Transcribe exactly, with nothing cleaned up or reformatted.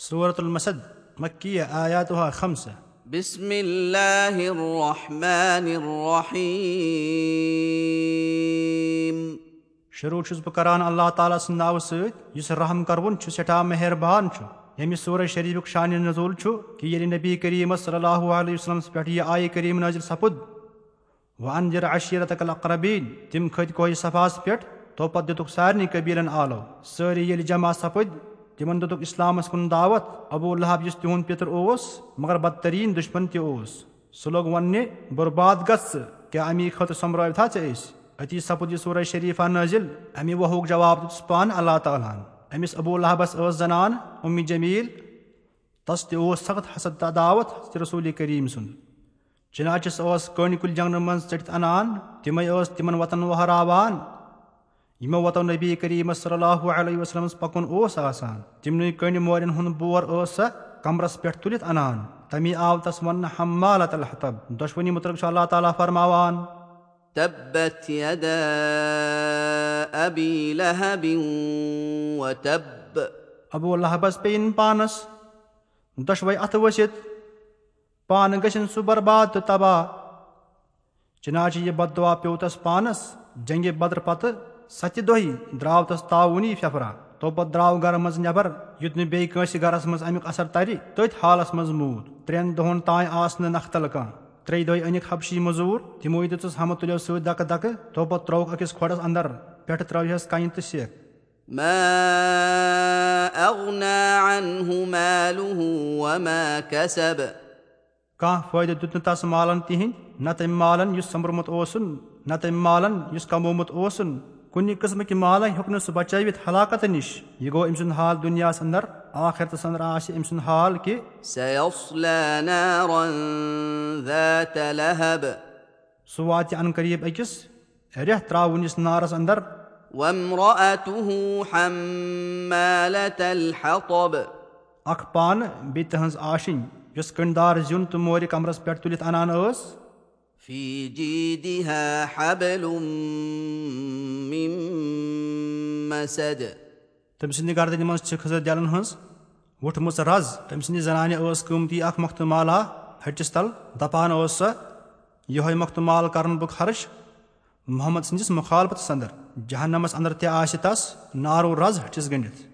سورة المسد، مکیہ، آیاتها خمسہ۔ بسم الله الرحمن الرحيم۔ شروع چھُس بہٕ کران اللہ تعالیٰ سٕنٛدِ ناوٕ سۭتۍ، یُس رحم کروُن چھُ، سٮ۪ٹھاہ مہربان چھُ۔ ییٚمہِ سورہ شریفُک شانِ نزول چھُ کہِ ییٚلہِ نبی کریم صلی اللہ علیہ وسلمس پٮ۪ٹھ یہِ آیہِ کریم نازل سپُد، وَأَنذِرْ عَشِيرَتَكَ الْأَقْرَبِينَ، تِم کھٔتۍ کوہِ صفاہس پٮ۪ٹھ، تو پتہٕ دِتُکھ سارنٕے قبیلن آلو۔ سٲری ییٚلہِ جمع سپٕدۍ، تِمن دِتُکھ اسلامس کُن دعوت۔ ابو لہب، یُس تِہُنٛد پِتُر اوس، مگر بدترین دشمن تہِ اوس، سُہ لوٚگ وننہِ، "برباد گژھ ژٕ، کیٛاہ امی خٲطرٕ سۄمبرٲوتھا ژےٚ أسۍ؟" أتی سپُد یہِ سورہ شریفہ نٲزِل۔ امہِ وہُک جواب دیُتُس پانہٕ اللہ تعالیٰ ہن۔ أمِس ابو لہبس ٲس زنان اُمِ جمیل، تس تہِ اوس سخت حسد تہٕ عداوت حضرت رسول کریم سُنٛد۔ چنانچہ سۄ ٲس کٔنۍ کُلۍ جنگلہٕ منٛز ژٔٹِتھ انان، تِمے ٲس تِمن وتن وہراوان، یِمو وتو نبی کریم صلی اللہ علیہ وسلمس پکُن اوس آسان۔ تِمنٕے کٔنۍ مورٮ۪ن ہُنٛد بور ٲس سۄ کمرس پٮ۪ٹھ تُلِتھ انان۔ تمی آو تس وننہٕ حمالۃ الحطب۔ دۄشوٕنی متعلق چھُ اللہ تعالیٰ فرماوان، تبت يدا أبي لهب وتب۔ ابو لہبس پیٚیِن پانس دۄشوے اتھٕ ؤسِتھ، پانہٕ گژھن سُہ برباد تہٕ تباہ۔ چنانچہ یہِ بددعا پیوٚو تس پانس۔ جنگِ بدر پتہٕ ستہِ دۄہہِ درٛاو تس تعاونی پھپھرا۔ تو پتہٕ درٛاو گرٕ منٛز نٮ۪بر، یُتھ نہٕ بیٚیہِ کٲنٛسہِ گرس منٛز امیُک اثر ترِ۔ تٔتھۍ حالس منٛز موٗد۔ ترٛٮ۪ن دۄہن تام آس نہٕ نکھتل کانٛہہ۔ ترٛیٚیہِ دۄہہِ أنِکھ حبشی مٔزوٗر، تِموٕے دِژٕس ہمہٕ تُلیو سۭتۍ دکہٕ دکہٕ، تو پتہٕ ترٛووُکھ أکِس کھۄڈس اندر، پٮ۪ٹھٕ ترٲوہس کنہِ تہٕ سٮ۪کھ۔ ما أغنى عنه ماله وما كسب۔ کانٛہہ فٲیدٕ دیُت نہٕ تس مالن تِہنٛدۍ، نہ تٔمۍ مالن یُس سۄمبرمُت اوسُن، نہ تٔمۍ مالن یُس کمومُت اوسُن۔ کُنہِ قٕسمہٕ کہِ مالن ہیوٚک نہٕ سُہ بچٲوِتھ ہلاکت نِش۔ یہِ گوٚو أمۍ سُنٛد حال دُنیاہس اندر، آخرتس اندر آسہِ أمۍ سُنٛد حال کہِ، سيصلى نارا ذات لهب۔ سُہ واتہِ ان قریب أکِس ریٚہہ ترٛاوُن یُس نارس اندر۔ وامرأته حمالة الحطب۔ اکھ پانہٕ بیٚیہِ تٕہٕنٛز آشِنۍ، یۄس کٔنٛڈدار زیُن تہٕ مورِ کمرس پٮ۪ٹھ تُلِتھ انان ٲس۔ في جيدها حبل من مسد۔ تٔمۍ سٕنٛدِ گردنہِ منٛز چھِ خٔزٕر دٮ۪لن ہٕنٛز وُٹھمٕژ رز۔ تٔمۍ سٕنٛدِ زنانہِ ٲس قۭمتی اکھ مۄختہٕ مالا ہٹِس تل۔ دپان ٲس سۄ، "یِہوٚے مۄختہٕ مال کرن بہٕ خرٕچ محمد سٕنٛدِس مخالفتس اندر۔ جہنمس اندر تہِ آسہِ تس نارو رز ہٹِس گٔنڈِتھ۔"